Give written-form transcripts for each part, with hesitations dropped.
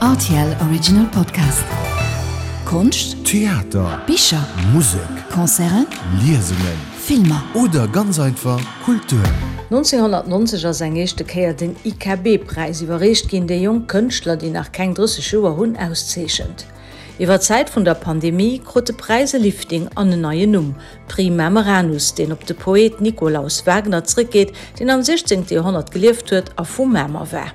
Rtl Original Podcast. Konscht, Theater, Bicher, Musek, Concerten, Liesungen, Filmer. Oder ganz einfach Kultur. 1990 ass eng éischte Kéier den IKB-Präis iwwerreecht ginn, dee jonk Kënschtler, déi nach keng 30 Joer hunn, auszeechent. Iwwer d'Zäit vun der Pandemie krut de Präis e Lifting an en neien Numm, Prix Mameranus, deen op de Poet Nikolaus Wagner zréckgeet, deen am 16. Joerhonnert gelieft huet a vu Mamer war.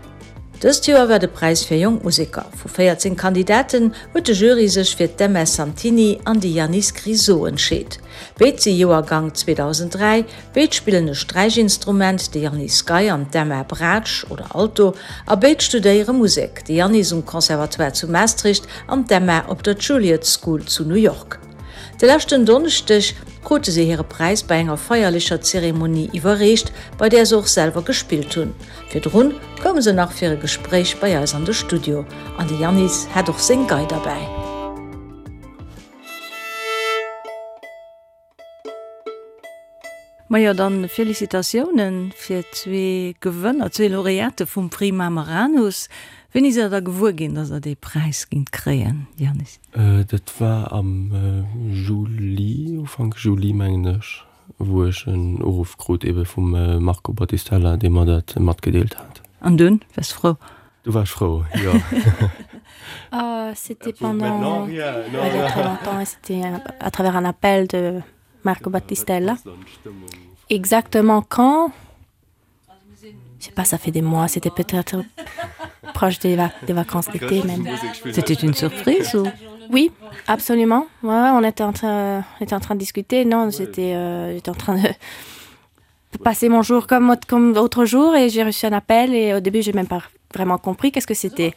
Dëst Joer war de Präis fir jonk Museker. Vu 14 Kandidaten huet de Jury sech fir d'Emma Santini an de Yannis Grisot entscheet. Béid si Joergang 2003, béid spillen e Sträichinstrument, de Yannis Gei an d'Emma Braatsch oder Alto, a béid studéiere Musek, de Yannis um Conservatoire zu Maastricht an d'Emma op der Juilliard School zu New York. De leschten Donneschdeg krute se hire Präis bei enger feierlecher Zeremonie iwwerreecht, bei där se och selwer gespillt hunn. Virdrun koume se nach fir e Gespréich bei eis an de Studio an de Yannis hat och seng Gei derbäi. Majo, dann Félicitatiounen fir zwee Gewënner, zwee Laureate vum Prix Mameranus. Wéini sidd der da gewuer ginn, dass der dee Präis gingt kréien, Yannis? Dat war am Juli, Ufank Juli mengen ech, wou ech en Uruff krut ebe vum Marco Battistella, dee mer dat matgedeelt hat. An dunn waars de frou? Du war ech frou, jo. C'était pendant il y a très longtemps et c'était à travers un appel de Marco Battistella. Exactement quand? Je sais pas, ça fait des mois, c'était peut-être proche des, vac des vacances d'été même. C'était une surprise ou? Oui, absolument. Ouais, ouais, on était en train, on était en train de discuter. Non, j'étais euh, en train de passer mon jour comme, comme autre jour et j'ai reçu un appel et au début j'ai même pas vraiment compris qu'est-ce que c'était.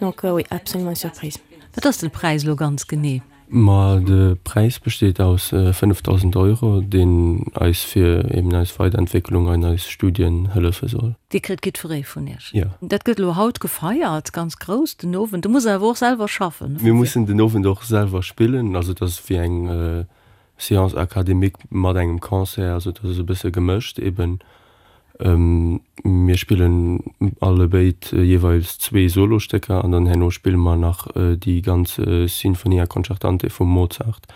Donc euh, oui, absolument une surprise. Wat ass de Präis lo ganz genee? Ma de Präis besteet aus 5.000 Euro, deen eis fir eben eis Weiderentwécklung an eis Studien hëllefe soll. Dee kritt jiddweree vun iech. Jo. Dat gëtt elo haut gefeiert, ganz grouss, den Owend. Do musst der awer och selwer schaffen. Mir mussen den Owend och selwer spillen. Also et ass wéi eng Séance académique mat engem Concert, also dat ass e bësse gemëscht eben. Mir spillen allebéid jeeweils zwee Solostécker an dann herno spille mer nach déi ganz Sinfonia concertante vum Mozart,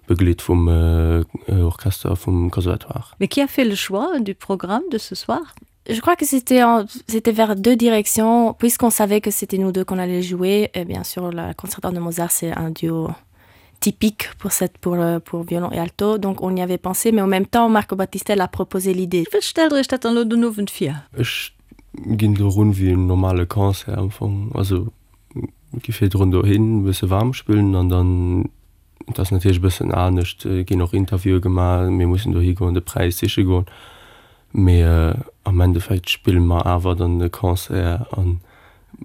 begleet vum Orchester vum Conservatoire. Mais qui a fait le choix du programme de ce soir? Je crois que c'était c'était vers deux directions puisqu'on savait que c'était nous deux qu'on allait jouer et bien sûr la concertante de Mozart c'est un duo typique pour cette pour euh, pour violon et alto donc on y avait pensé mais en même temps Marco Battistel a proposé l'idée. Wéi stellt der iech dat dann elo den Owend vir? Ech ginn do erun wéi en normale Concert am Fong, also gi virdrun dohin e bësse waarm spillen an dann Et ass natierlech e bëssen anescht, et ginn och Interviewe gemaach, mir mussen dohi goen, de Präis siche goen, mee am Endeffekt spille mer awer dann e Concert a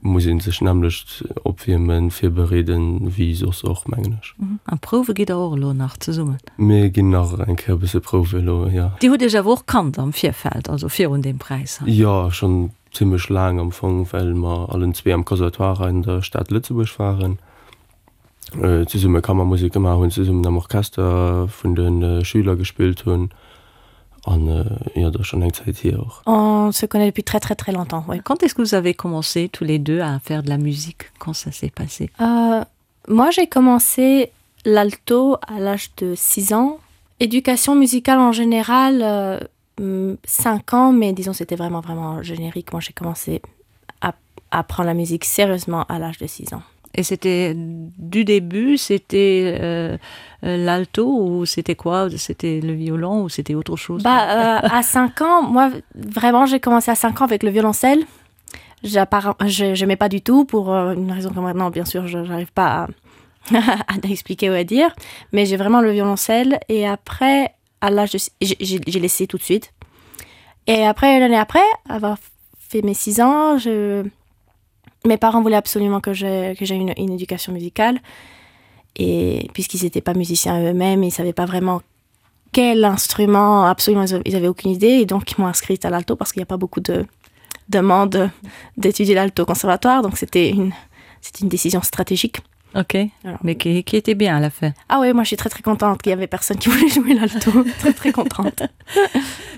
muss ee sech nämmlecht opwiermen, virbereeden, wéi soss och, mengen ech. A prouwe gitt der och elo nach zesummen? Mir ginn nach eng Kéier e bësse prouwe elo, jo. Dir hutt Iech awer och kannt am Virfeld, also virun deem Präis hei? Jo, schonn zimmlech laang am Fong, well mer allen zwee am Conservatoire an der Stad Lëtzebuerg waren. zesumme Kammermusek gemaach hunn, zesummen am Orchester vun de Schüler gespillt hunn an jo, dat ass schonn eng Zäit hier och. On se connaît depuis très très très longtemps, oui. Quand est-ce que vous avez commencé tous les deux à faire de la musique? Quand ça s'est passé? Euh, moi j'ai commencé l'alto à l'âge de 6 ans. Éducation musicale en général, euh, 5 ans, mais disons c'était vraiment vraiment générique. Moi j'ai commencé à apprendre la musique sérieusement à l'âge de 6 ans. Et c'était du début, c'était euh, euh, l'alto ou c'était quoi C'était le violon ou c'était autre chose bah, euh, À 5 ans, moi vraiment j'ai commencé à 5 ans avec le violoncelle. Je n'aimais pas du tout pour euh, une raison que maintenant bien sûr je n'arrive pas à, à expliquer ou à dire, mais j'ai vraiment le violoncelle et après à l'âge de j'ai laissé tout de suite. Et après l'année après avoir fait mes 6 ans, je mes parents voulaient absolument que j'ai que j'ai une, une éducation musicale et puisqu'ils n'étaient pas musiciens eux-mêmes, ils savaient pas vraiment quel instrument absolument ils avaient aucune idée et donc ils m'ont inscrite à l'alto parce qu'il n'y a pas beaucoup de demandes d'étudier l'alto conservatoire donc c'était une c'est une décision stratégique. Ok Alors. mais qui, qui était bien à la fin. Ah oui moi je suis très très contente qu'il y avait personne qui voulait jouer l'alto très très contente.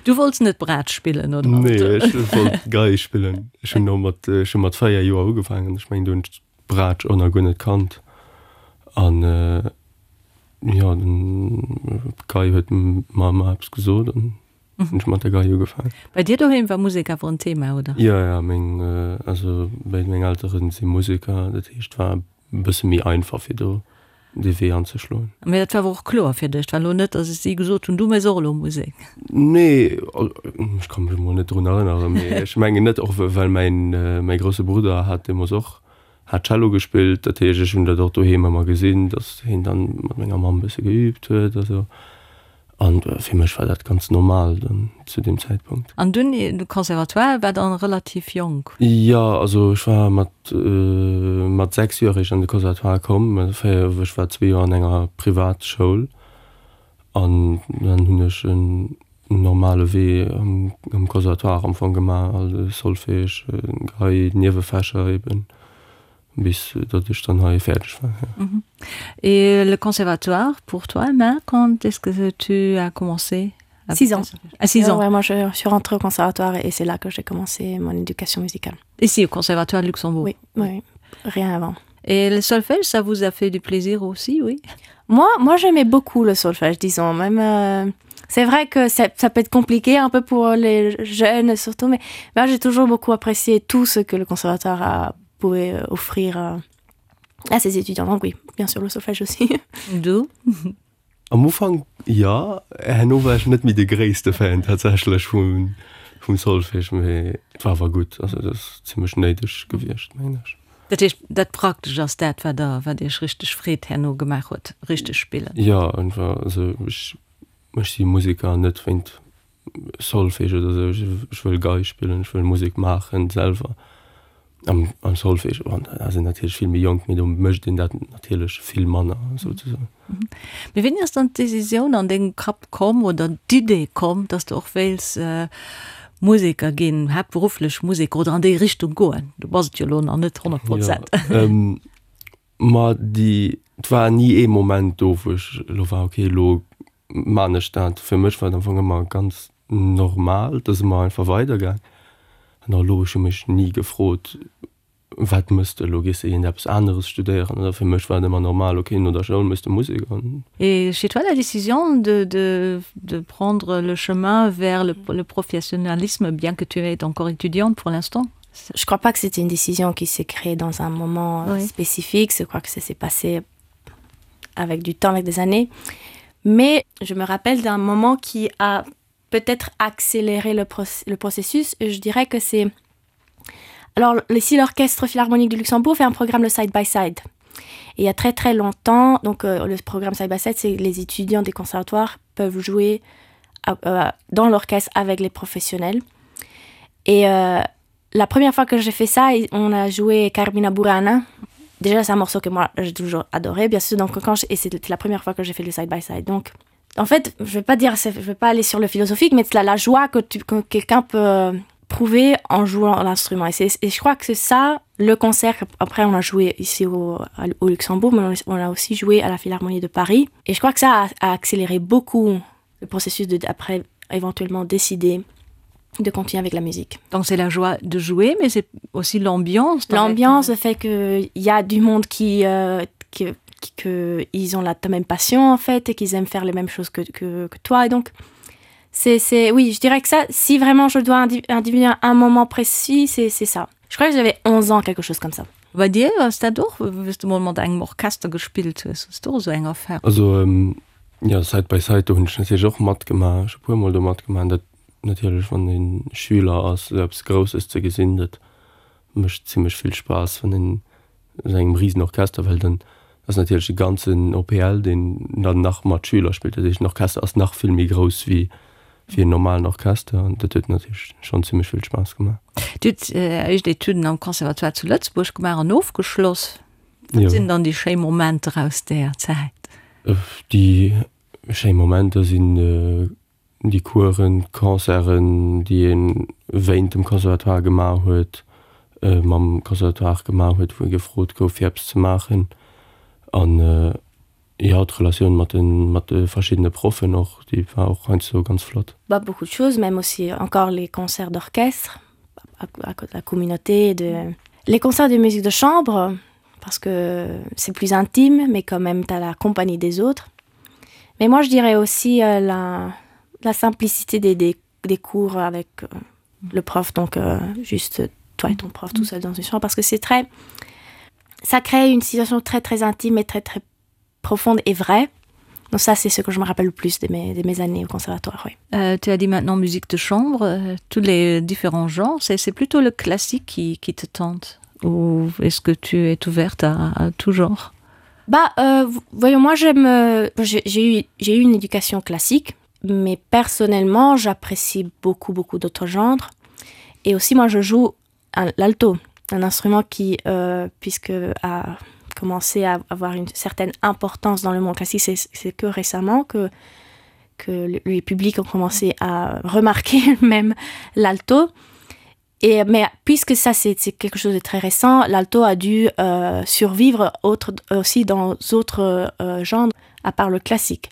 Du wollts net Braatsch spillen oder? Nee, ech wollt Gei spillen. Ech hunn no mat, ech hu mat 4 Joer ugefaangen. Ech mengen, do hunn ech. d'Braatsch och nach guer net kannt an jo den d'Gei huet mer ëmmer eppes gesot an hunn ech mat der Gei ugefaangen. Bei dir doheem war Musek awer en Thema, oder? Jo, jo, meng, also béid meng Elteren si Museker, dat heescht war e bësse méi einfach fir do dee Wee anzeschloen. Mee dat war awer och kloer fir dech, et war elo net, datt si gesot hunn, du méchs och elo Musek? Nee, ech ka mech emol net drun erënneren, mee ech mengen net, och well mäin, mäi grousse Brudder hat deemools och hat Cello gespillt, dat heescht ech hunn dat och doheem ëmmer gesinn, datt hien dann mat menger Mamm e bësse geüübt huet a sou. An fir mech war dat ganz normal dann zu deem Zäitpunkt. An dunn de Conservatoire war dann relativ jonk? Jo, also ech war mat mat 6 Joer eréischt an de Conservatoire komm. Ech war zwee Joer an enger Privatschoul an dann hunn ech en normale Wee am Conservatoire am Fong gemaach, also Solfège, Gei, Niewefächer eben. Bis datt ech dann hei fäerdeg war, ja. Et le conservatoire pour toi, Emma, quand est-ce que tu as commencé? 6 ans. À 6 ans. Ouais, moi je suis rentrée au conservatoire et c'est là que j'ai commencé mon éducation musicale. Ici au conservatoire de Luxembourg? Oui, oui, rien avant. Et le solfège, ça vous a fait du plaisir aussi, oui? Moi, moi j'aimais beaucoup le solfège, disons, même euh, c'est vrai que ça, ça peut être compliqué un peu pour les jeunes surtout, mais moi j'ai toujours beaucoup apprécié tout ce que le conservatoire a pouvait euh, offrir euh, à ses étudiants. Donc oui, bien sûr le solfège aussi. Du? Am Ufank jo, herno war ech net méi de gréisste Fan tatsächlech vum vum Solfège, mee et war awer gutt, also et ass zimmlech néideg gewiescht, mengen ech. Dat heescht, dat Praktescht ass dat, wat der, wat Iech richteg Freed herno gemaach huet, richteg spillen? Jo, einfach, also ech ech si Museker net wéint Solfège oder sou, ech wëll Gei spillen, ech wëll Musek maachen selwer. Am am Solfège, bon, da ass een natierlech vill méi jonk, mee do mécht een dat natierlech vill manner souzesoen. Mee wéini ass dann d'Decisioun an dengem Kapp komm oder d'Idee komm, dass de och wéils Museker ginn, haaptberufflech Museker oder an déi Richtung goen? Du bass et jo elo nach net 100 Prozent. Jo, ma déi, et war ni ee Moment do, wou ech elo war, okay, elo maan ech dat. Fir mech war et am Fong ëmmer ganz normal, et ass ëmmer einfach weidergaang. An och elo, ech hu mech ni gefrot, wat mëss de elo, gees de iergend eppes aneres studéieren oder fir mech war et ëmmer normal, ok, no der Schoul mëss de Musek an. Et chez toi la décision de de de prendre le chemin vers le le professionnalisme bien que tu es encore étudiante pour l'instant? Je crois pas que c'était une décision qui s'est créée dans un moment oui. spécifique, je crois que ça s'est passé avec du temps avec des années. Mais je me rappelle d'un moment qui a peut-être accéléré le, pro le processus et je dirais que c'est alors ici l'orchestre philharmonique du Luxembourg fait un programme le side by side. Et il y a très très longtemps donc euh, le programme side by side c'est les étudiants des conservatoires peuvent jouer à, euh, dans l'orchestre avec les professionnels. Et euh, la première fois que j'ai fait ça, on a joué Carmina Burana. Déjà c'est un morceau que moi j'ai toujours adoré bien sûr donc quand et c'était la première fois que j'ai fait le side by side donc en fait je vais pas dire je vais pas aller sur le philosophique mais la, la joie que tu que quelqu'un peut prouver en jouant l'instrument et, et je crois que c'est ça le concert après on a joué ici au, au Luxembourg mais on, on a aussi joué à la Philharmonie de Paris et je crois que ça a, a accéléré beaucoup le processus de après éventuellement décider de continuer avec la musique. Donc c'est la joie de jouer, mais c'est aussi l'ambiance. L'ambiance fait qu'il y a du monde qui, euh, qui, qui, que ils ont la même passion en fait et qu'ils aiment faire les mêmes choses que, que, que toi et donc c'est oui je dirais que ça si vraiment je dois individuer un moment précis c'est ça. Je crois que j'avais 11 ans quelque chose comme ça. Bei dir ass dat och, wéi s du mol mat engem Orchester gespillt hues, hues du och esou eng Erfahrung? Also ähm, ja Side by Side do hunn ech natierlech och matgemaach, ech hu puer mol do matgemaach. Dat natierlech wann ee Schüler ass esou eppes Grousses ze gesinn, dat mécht zimmlech vill Spaass, wann een esou engem risen Orchester, well dann ass natierlech de ganzen OPL deen dann nach mat Schüler spillt, dat heescht den Orchester ass nach vill méi grouss wéi wéi en normalen Orchester an dat huet natierlech schonn zimmlech vill Spaass gemaach. Dir hutt Är éischt Etüden am Conservatoire zu Lëtzebuerg gemaach an ofgeschloss. Wat sinn dann déi schéi Momenter aus där Zäit? Déi schéi Momenter sinn déi Coursen, d'Concerten, déi ee wéint dem Conservatoire gemaach huet, mam Conservatoire gemaach huet, wou ee gefrot gouf fir eppes ze maachen an jo d'Relatioun mat de mat de verschiddene Proffen och, déi war och heiansdo ganz flott. Bah beaucoup de choses, même aussi encore les concerts d'orchestre à, à la communauté de les concerts de musique de chambre. parce que c'est plus intime, mais quand même tu as la compagnie des autres. Mais moi je dirais aussi euh, la, la simplicité des, des, des cours avec euh, le prof, donc euh, juste toi et ton prof tout seul dans une chambre, parce que c'est très ça crée une situation très très intime et très très profonde et vraie. Donc ça c'est ce que je me rappelle le plus de mes, de mes années au conservatoire. Oui. Euh, tu as dit maintenant musique de chambre, euh, tous les différents genres, c'est plutôt le classique qui, qui te tente ou est-ce que tu es ouverte à, à tout genre Bah euh, voyons moi j'aime euh, j'ai eu j'ai eu une éducation classique mais personnellement j'apprécie beaucoup beaucoup d'autres genres et aussi moi je joue l'alto un instrument qui euh, puisque a commencé à avoir une certaine importance dans le monde classique c'est que récemment que que les publics ont commencé à remarquer même l'alto et mais puisque ça c'est quelque chose de très récent l'alto a dû euh, survivre autre aussi dans autres euh, genres à part le classique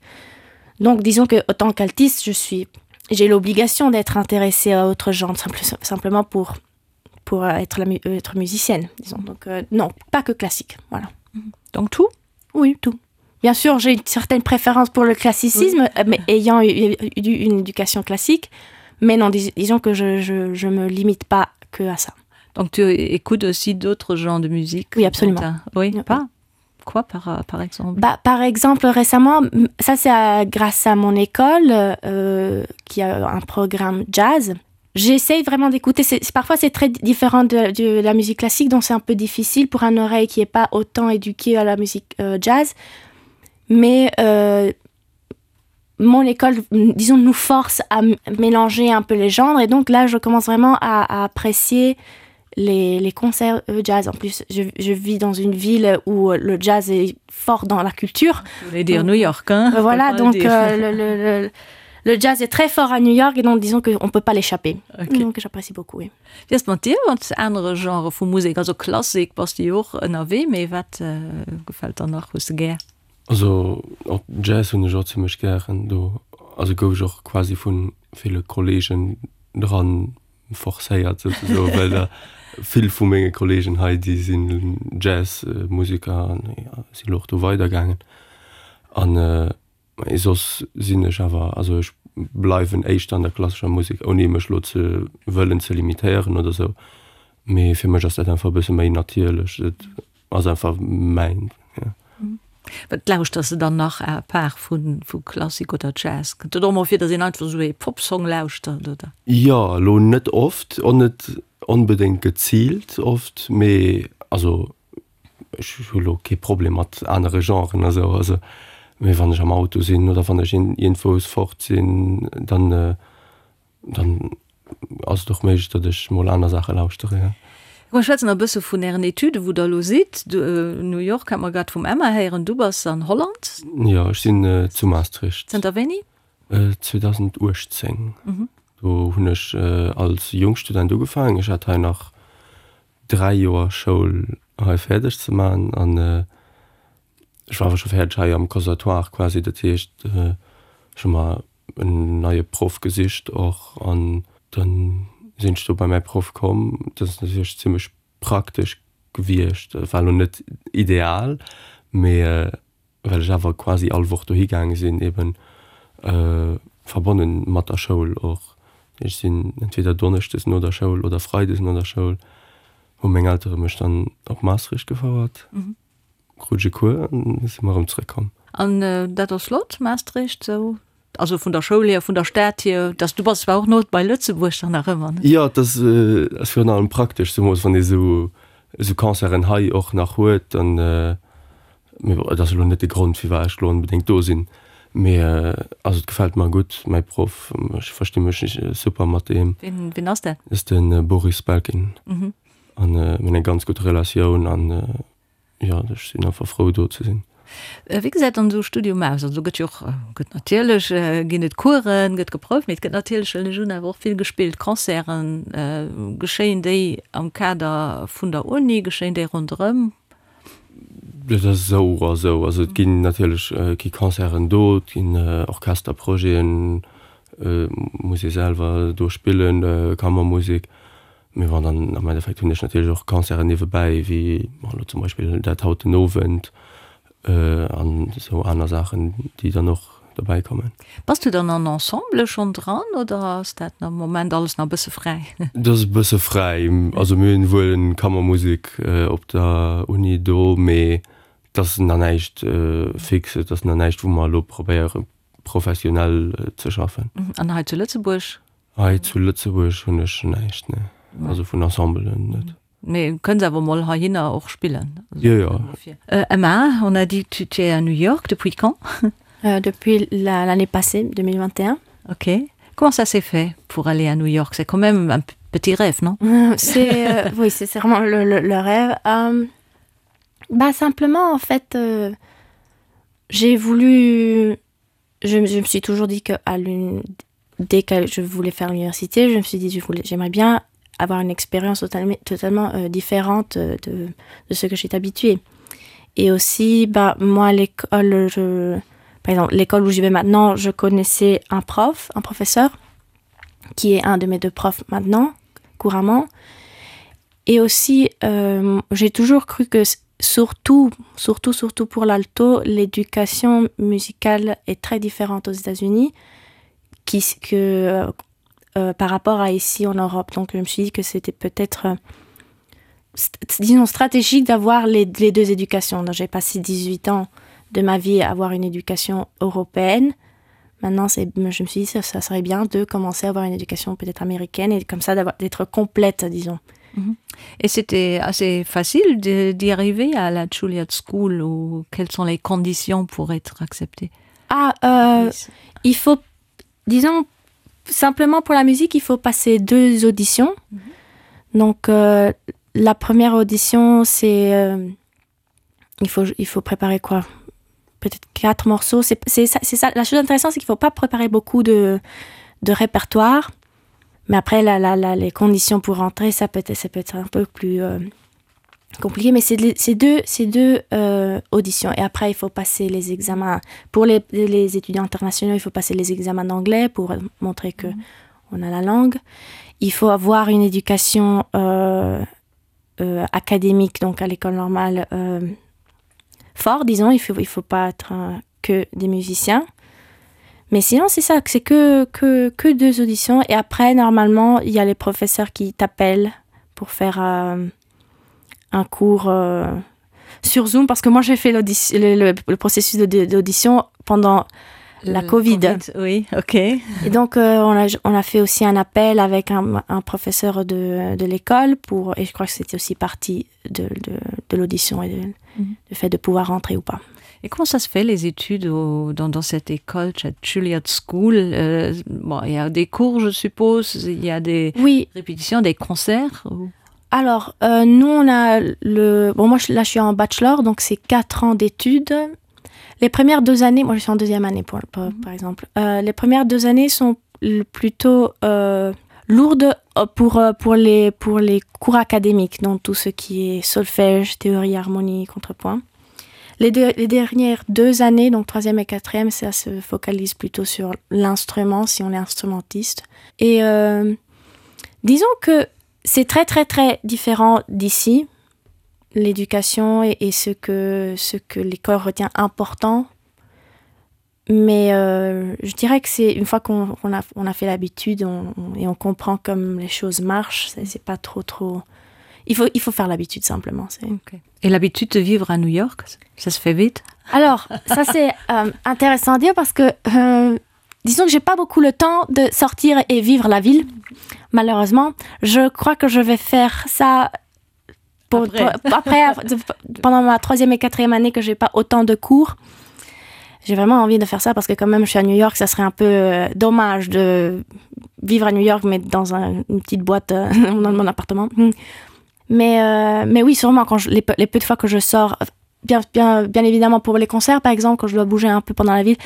donc disons que autant qu'altiste je suis j'ai l'obligation d'être intéressé à autre genre simple simplement pour pour euh, être la euh, être musicienne disons donc euh, non pas que classique voilà donc tout oui tout bien sûr j'ai une certaine préférence pour le classicisme oui. Euh, mais ayant eu, eu une éducation classique mais non dis, disons que je, je, je me limite pas que à ça donc tu écoutes aussi d'autres genres de musique oui absolument oui pas quoi par, par exemple bah, par exemple récemment ça c'est grâce à mon école euh, qui a un programme jazz j'essaye vraiment d'écouter parfois c'est très différent de, de la musique classique donc c'est un peu difficile pour un oreille qui est pas autant éduqué à la musique euh, jazz mais euh, mon école disons nous force à mélanger un peu les genres et donc là je commence vraiment à, à apprécier les, les concerts euh, jazz en plus je, je vis dans une ville où le jazz est fort dans la culture vous dire donc, New York hein, voilà donc euh, le, le, le, le jazz est très fort à New York et donc disons qu'on peut pas l'échapper okay. donc j'apprécie beaucoup oui. Wéi ass et mat dir mat anere Genre vu Musek? Also Klassik bass de jo och ënnerwee, mee wat gefält der nach, hues de gär? Also och Jazz hunn ech och zimmlech gären. Do also gouf ech och quasi vu ville Kollegen dran forcéiert souzesoen, well der vill vu menge Kollegen hei déi sinn Jazz-Museker an si lo och do weidergaangen. An Mee soss sinn ech awer, also ech bleiwen éischter an der klassescher Musek, ouni mech elo ze wëllen ze limitéieren oder sou. Mee fir mech ass dat einfach e bësse méi natierlech, et ass einfach mäin, jo. Wat lauschters de dann nach à part vu vu Klassik oder Jazz? Kënnt et och mol vir, datt een einfach esou ee Popsong lauschtert, oder? Jo, elo net oft, och net onbedéngt geziilt oft, mee also Ech hu lo kee Problem mat anere Genren a sou, also mee wann ech am Auto sinn oder wann ech iergendwous fort sinn, dann dann ass et och méiglech, datt ech mol aner Saache lauschtere, jo. Mir schwätzen nach e bësse vun Ären Etüden, wou Der elo sidd. New York hat mer grad vum Emma héieren. Du bass an Holland? Jo, ech sinn zu Maastricht. Zënter wéini? 2018. Do hunn ech als Jungstudent ugefaangen. Ech hat hei nach 3 Joer Schoul hei fäerdeg ze man an ech war awer scho fäerdeg hei am Conservatoire quasi, dat heescht ech hu mer en neie Proff gesicht och an dann sinn ech do bei mäi Proff komm. Dat ass natierlech zimmlech praktesch gewiescht, war elo net ideal, mee well ech awer quasi all Woch dohi gaange sinn, eben verbonnen mat der Schoul och. Ech sinn entweder donneschdes no der Schoul oder freides no der Schoul hu meng Eltere mech dann op Maastricht gefouert, krut ech e Cours an da si mer erëm zrëckkomm. An dat ass flott, Maastricht, sou? Also vun der Schoul hier, vun der Stad hier, dass du bass zwar och no bei Lëtzebuerg dann nach ëmmer, ne? Jo, et ass virun allem praktesch, zemools wann ee sou esou Concerten hei och nach huet, dann Mee bon, et ass elo net de Grond, firwat ech elo onbedéngt do sinn. Mee also et gefält mer gutt, mäi Proff, ech versti mech super mat deem. Wien, wien ass dat? Dat ass de Boris Belkin. An mir hunn eng ganz gutt Relatioun an jo, ech sinn einfach frou do ze sinn. Wéi gesäit dann esou e Studium aus? Also do gëtt jo och, gëtt natierlech, ginn et Coursen, gëtt geprouft, mee et gëtt natierlech, huelen ech un, awer och vill gespillt. Concerten, geschéien déi am Kader vun der Uni, geschéien déi ronderëm? Dat ass esou a sou. Also et ginn natierlech gi Concerten do, et ginn Orchesterprojeten, muss ee selwer do spillen, Kammermusek. Mee bon, dann am Endeffekt hunn ech natierlech och Concerten niewebäi, wéi bon elo zum Beispill dat haut den Owend an esou aner Saachen, déi dann och dobäi kommen. Bass du dann an Ensemble schonn dran oder ass dat am Moment alles nach e bësse fräi? Dat ass e bësse fräi. Also mir hunn wuel eng Kammermusek op der Uni do, mee et ass nach näischt fix, et ass nach näischt wou mer elo probéiere professionell ze schaffen. An hei zu Lëtzebuerg? Hei zu Lëtzebuerg hunn ech näischt, nee. Also vun Ensembelen net. Mee kënns awer mol heihinner och spillen? Jo, jo. Emma, on a dit tu es à New York, depuis quand? Depuis l'année passée, 2021. Ok. Comment ça s'est fait pour aller à New York? C'est quand même un petit rêve, non? C'est oui, c'est vraiment le, le, le rêve. Euh, bah simplement, en fait, euh, j'ai voulu je, je me suis toujours dit que à l'une dès que je voulais faire l'université, je me suis dit je voulais j'aimerais bien avoir une expérience totalement, totalement euh, différente de, de ce que j'étais habituée. Et aussi bah moi à l'école je par exemple l'école où j'y vais maintenant, je connaissais un prof, un professeur qui est un de mes deux profs maintenant couramment. Et aussi euh, j'ai toujours cru que surtout surtout surtout pour l'alto l'éducation musicale est très différente aux états-unis qui que euh, euh, par rapport à ici en europe donc je me suis dit que c'était peut-être euh, disons stratégique d'avoir les, les deux éducations donc j'ai passé 18 ans de ma vie à avoir une éducation européenne maintenant c'est je me suis dit ça, ça serait bien de commencer à avoir une éducation peut-être américaine et comme ça d'avoir d'être complète disons mhm. Et c'était assez facile d'y arriver à la Juilliard School ou quelles sont les conditions pour être accepté Ah euh, il faut disons simplement pour la musique il faut passer deux auditions mm -hmm. donc euh, la première audition c'est euh, il faut il faut préparer quoi peut-être quatre morceaux c'est ça c'est ça la chose intéressante c'est qu'il faut pas préparer beaucoup de de répertoire mais après la, la, la les conditions pour rentrer ça peut être ça peut être un peu plus euh, compliqué mais c'est ces deux ces deux euh, auditions et après il faut passer les examens pour les, les étudiants internationaux il faut passer les examens d'anglais pour montrer que mmh. on a la langue il faut avoir une éducation euh, euh, académique donc à l'école normale euh, fort disons il faut il faut pas être euh, que des musiciens mais sinon c'est ça c'est que que que deux auditions et après normalement il y a les professeurs qui t'appellent pour faire euh, un cours euh, sur zoom parce que moi j'ai fait le, le, le processus d'audition pendant la COVID. COVID oui, ok. Et donc euh, on, a, on a fait aussi un appel avec un, un professeur de, de l'école pour et je crois que c'était aussi partie de, de, de l'audition et de, mm -hmm. le fait de pouvoir rentrer ou pas. Et comment ça se fait les études au, dans, dans cette école Juilliard School euh, bon, il y a des cours je suppose, il y a des oui. répétitions, des concerts ou... Alors euh, nous on a le bon moi je, là je suis en bachelor donc c'est quatre ans d'études les premières deux années moi je suis en deuxième année pour, pour, mm -hmm. par exemple euh, les premières deux années sont plutôt euh, lourdes euh, pour euh, pour les pour les cours académiques donc tout ce qui est solfège théorie harmonie contrepoint les deux, les dernières deux années donc troisième et quatrième ça se focalise plutôt sur l'instrument si on est instrumentiste et euh, disons que c'est très très très différent d'ici l'éducation et, et ce que ce que l'école retient important mais euh, je dirais que c'est une fois qu'on qu a, on a fait l'habitude on, on, et on comprend comme les choses marchent c'est pas trop trop il faut il faut faire l'habitude simplement c'est okay. et l'habitude de vivre à New York ça se fait vite alors ça c'est euh, intéressant à dire parce que euh, disons que j'ai pas beaucoup le temps de sortir et vivre la ville malheureusement je crois que je vais faire ça pour, après. Pour, après pendant ma troisième et quatrième année que j'ai pas autant de cours j'ai vraiment envie de faire ça parce que quand même je suis à New York ça serait un peu euh, dommage de vivre à New York mais dans un, une petite boîte euh, dans mon appartement mais euh, mais oui sûrement quand je, les, les peu de fois que je sors bien bien bien évidemment pour les concerts par exemple quand je dois bouger un peu pendant la ville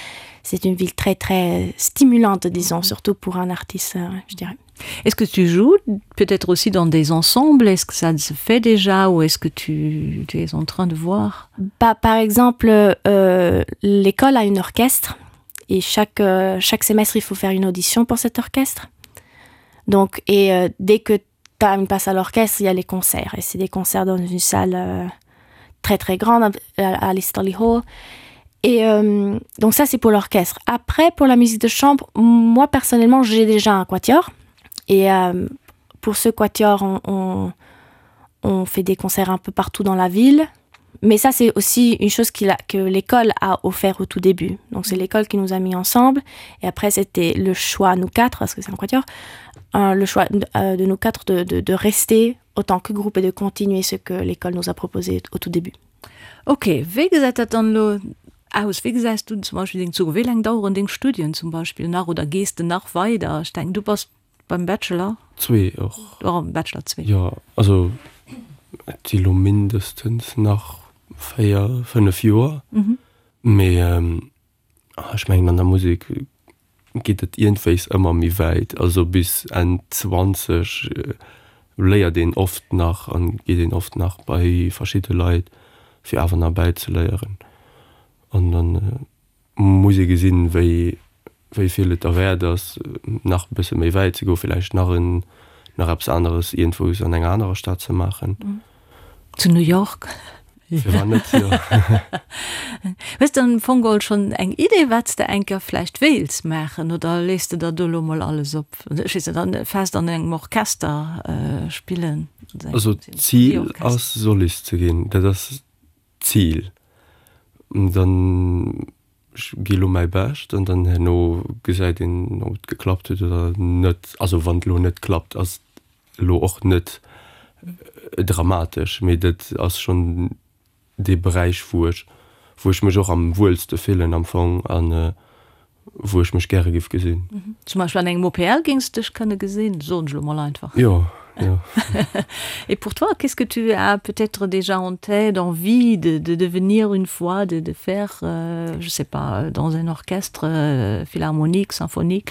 c'est une ville très très stimulante disons surtout pour un artiste euh, je dirais Est-ce que tu joues peut-être aussi dans des ensembles Est-ce que ça se fait déjà ou est-ce que tu, tu es en train de voir bah, Par exemple, euh, l'école a une orchestre et chaque, euh, chaque semestre il faut faire une audition pour cet orchestre. Donc, et euh, dès que. tu as une place à l'orchestre, il y a les concerts et c'est des concerts dans une salle euh, très très grande à, à l'Easterly Hall. Et euh, donc ça c'est pour l'orchestre. Après pour la musique de chambre, moi personnellement j'ai déjà un quatuor et euh, pour ce quatuor on, on, on fait des concerts un peu partout dans la ville. Mais ça c'est aussi une chose qu'il a, que l'école a offert au tout début. Donc c'est l'école qui nous a mis ensemble et après c'était le choix nous quatre parce que c'est un quatuor euh, le choix euh, de nous quatre de, de, de rester autant que groupe et de continuer ce que l'école nous a proposé au tout début. Ok, wéi gesäit dat dann elo aus? Wéi gesäis du zum Beispill deng Zukunft? Wéi laang daueren deng Studien zum Beispill nach oder gees de nach weider? Ech denken, du bass beim Bachelor. Zwee och. Oh, Bachelor zwee. Jo, also et si lo mindestens nach 4, 5 Joer. Mee ech mengen an der Musek geet et iergendwéis ëmmer méi wäit. Also bis Enn 20 léiert een oft nach an geet een oft nach bei verschidde Leit fir awer nach bäizeléieren. An dann muss ee gesinn, wéi wéi vill et derwäert ass, nach e bësse méi wäit ze goen, villäicht nach en nach eppes aneres iergendwous an enger anerer Stad ze maachen. Zu New York? Firwat net, jo. Hues de am Fong geholl schonn eng Idee, wat s de eng Kéier vläicht wéilts maachen, oder léiss de der do elo mol alles op? Ech weess net, fest an engem Orchester spillen? Also d'Zil ass Solist ze ginn, dat ass d'Zil. Dann ech gi lo mäi Bescht an dann herno gesäit een, ob et geklappt huet oder net. Also wann et elo net klappt, ass et elo och net dramatesch, mee dat ass schonn dee Beräich, wou ech, wou ech mech och am wuelste fillen am Fong an wou ech mech gäre giff gesinn. Zum Beispill an engem OPL géings de dech kënne gesinn, soen ech elo mol einfach. Jo, jo. Et pour toi, qu'est-ce que tu as peut-être déjà en tête, envie de de devenir une fois, de de faire, je sais pas, dans un orchestre philharmonique, symphonique?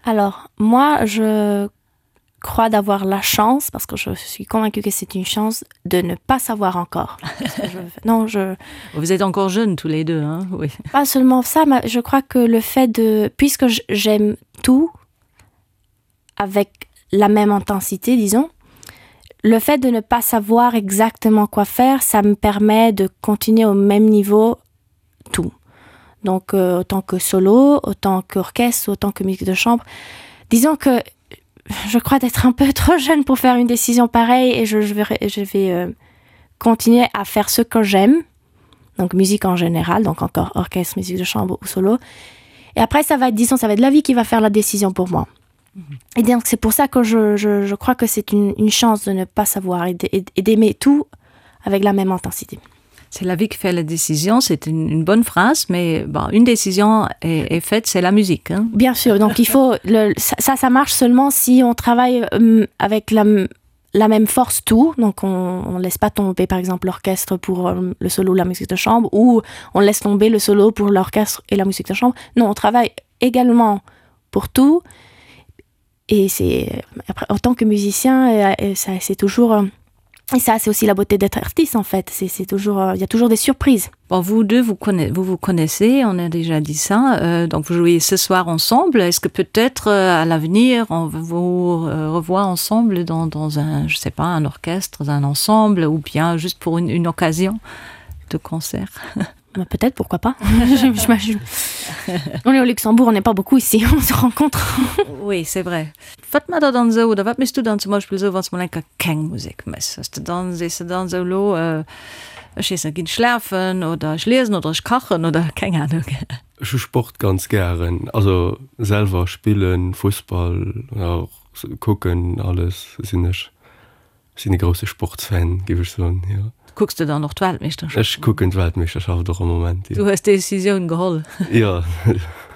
Alors moi je crois d'avoir la chance parce que je suis convaincue que c'est une chance de ne pas savoir encore je, non je vous êtes encore jeune tous les deux hein oui pas seulement ça mais je crois que le fait de puisque j'aime tout avec la même intensité disons le fait de ne pas savoir exactement quoi faire ça me permet de continuer au même niveau tout donc euh, autant que solo autant qu'orchestre autant que musique de chambre disons que je crois d'être un peu trop jeune pour faire une décision pareille et je, je vais, je vais euh, continuer à faire ce que j'aime donc musique en général donc encore orchestre musique de chambre ou solo et après ça va être disons ça va être la vie qui va faire la décision pour moi mm -hmm. et donc c'est pour ça que je, je, je crois que c'est une, une chance de ne pas savoir et d'aimer tout avec la même intensité C'est la vie qui fait la décision, c'est une, une bonne phrase, mais bon, une décision est, est faite, c'est la musique. Hein. Bien sûr, donc il faut le, ça, ça marche seulement si on travaille euh, avec la, la même force tout, donc on ne laisse pas tomber par exemple l'orchestre pour euh, le solo ou la musique de chambre, ou on laisse tomber le solo pour l'orchestre et la musique de chambre. Non, on travaille également pour tout. Et c'est après en tant que musicien, et, et ça c'est toujours euh, Et ça, c'est aussi la beauté d'être artiste en fait. C'est toujours, euh, il y a toujours des surprises. Bon, vous deux, vous, connaissez, vous vous connaissez, on a déjà dit ça. Euh, donc vous jouez ce soir ensemble. Est-ce que peut-être euh, à l'avenir, on vous euh, revoit ensemble dans, dans un, je sais pas, un orchestre, un ensemble ou bien juste pour une, une occasion de concert Peut-être, pourquoi pas je, On est au Luxembourg, on n'est pas beaucoup ici, on se rencontre. oui, c'est vrai. Wat mat der dann esou, oder wat méchs du dann zum Beispill esou, wann s de mol eng Kéier keng Musek méchs? Hues de dann, sees de dann esou, elo, ech weess net, ginn schlafen oder ech liesen oder ech kachen oder keng Ahnung? Ech hu Sport ganz gären, also selwer spillen, Fussball oder och kucken, alles sinn ech Ech sinn e grousse Sportsfan, géif ech soen, jo. Kucks de dann och d'Weltmeeschterschaft? Ech kucken d'Weltmeeschterschaft och am Moment, jo. Du hues d'Decisioun geholl? Jo.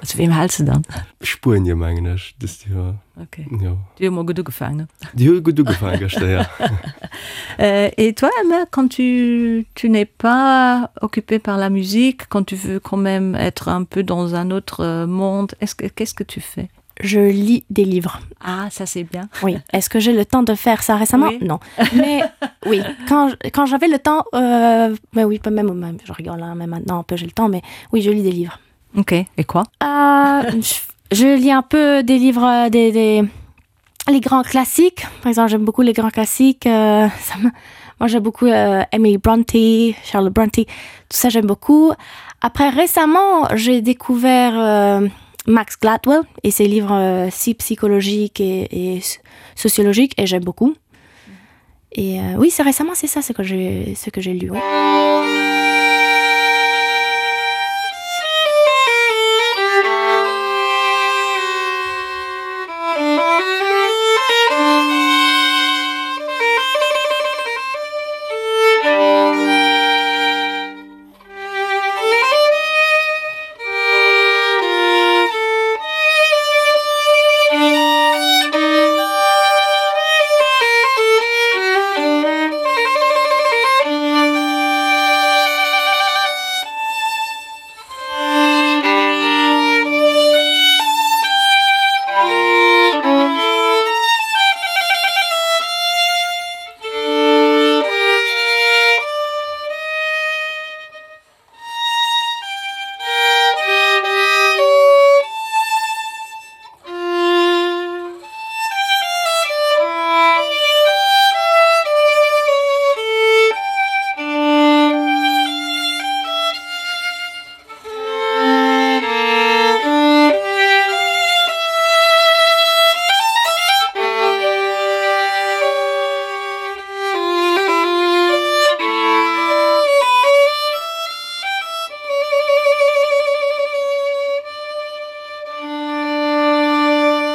Zu weem häls de dann? Spuenie, mengen ech, dëst Joer. Ok. Jo. Déi hu mol gutt ugefaangen, ne? Déi hu gutt ugefaangen gëschter, jo. Et toi, Emma, quand tu tu n'es pas occupée par la musique, quand tu veux quand même être un peu dans un autre monde, est-ce que qu'est-ce que tu fais? Je lis des livres. Ah, ça c'est bien. Oui. Est-ce que j'ai le temps de faire ça récemment? Oui. Non. Mais oui, quand quand j'avais le temps euh, mais oui, pas même même je rigole hein, mais maintenant un peu j'ai le temps mais oui, je lis des livres. OK, et quoi? Euh, je, je lis un peu des livres euh, des, des... Les grands classiques, par exemple j'aime beaucoup les grands classiques euh, ça me, moi j'aime beaucoup euh, Emily Bronte, Charlotte Bronte, tout ça j'aime beaucoup. Après récemment j'ai découvert euh, Max Gladwell et ses livres euh, si psychologiques et, et sociologiques et j'aime beaucoup. Et euh, oui c'est récemment c'est ça ce que j'ai ce que j'ai lu. Ouais.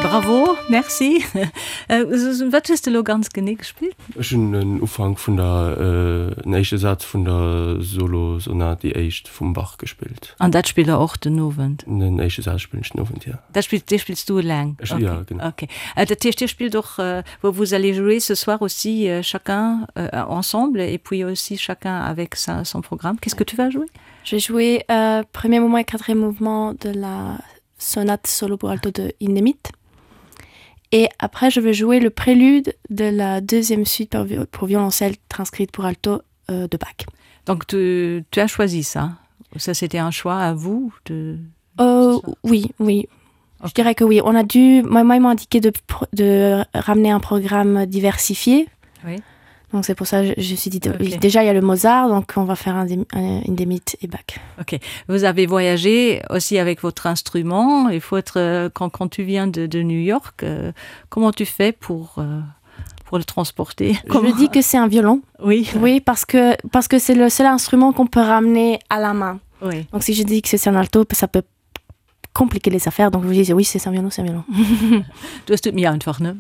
Bravo, merci. Wat hues de elo ganz genee gespillt? Ech hunn den Ufank vun der, den éischte Saz vun der Solosonat, déi éischt vum Bach gespillt. An dat spillt der och den Owend? Den éischte Saz spillen ech den Owend, jo. Dat spills, dee spills du eleng? Ech, jo, genau. Ok. Dat heescht, dir spillt och, vous allez jouer ce soir aussi chacun ensemble et puis aussi chacun avec sa, son programme. Qu'est-ce que tu vas jouer? Je vais jouer euh, premier mouvement et quatrième mouvement de la sonate solo pour alto de Hindemith. Et après, je vais jouer le prélude de la deuxième suite pour, pour violoncelle transcrite pour alto euh, de Bach. Donc tu, tu as choisi ça Ça, c'était un choix à vous de... Euh, oui, oui. Okay. Je dirais que oui. On a dû moi, moi, ils m'ont indiqué de, de ramener un programme diversifié. Oui. Donc c'est pour ça que je, je suis dit okay. déjà il y a le Mozart donc on va faire un, un, une démite et bac. Ok vous avez voyagé aussi avec votre instrument il faut être euh, quand, quand tu viens de, de New York euh, comment tu fais pour euh, pour le transporter comment... Je dis que c'est un violon oui oui parce que parce que c'est le seul instrument qu'on peut ramener à la main oui. donc si je dis que c'est un alto ça peut compliquer les affaires donc vous dites oui c'est un violon c'est un violon du hast mir einfach ne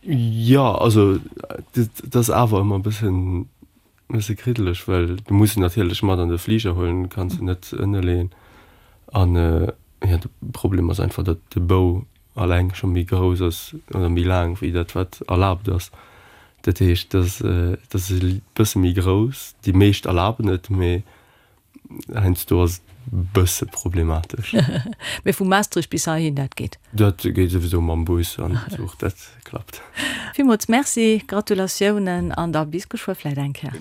Ja also dat ass awer ëmmer e bëssen bësse kriddeleg, well du muss en natierlech mat an de Fliger huelen, kanns en net ënne leeën. An jo de Problem ass einfach, datt de Bou alleng scho méi grouss ass oder méi laang wéi dat wat erlaabt ass. Dat heescht, dat ass e bësse méi grouss. Déi meescht erlaben et, mee Heiansdo ass et bësse problematesch. Mee vu Maastricht bis heihin, dat geet? Dat geet souwisou mam Bus an Zuch, dat klappt. Villmools Merci, Gratulatiounen an da bis geschwë vläit eng Kéier.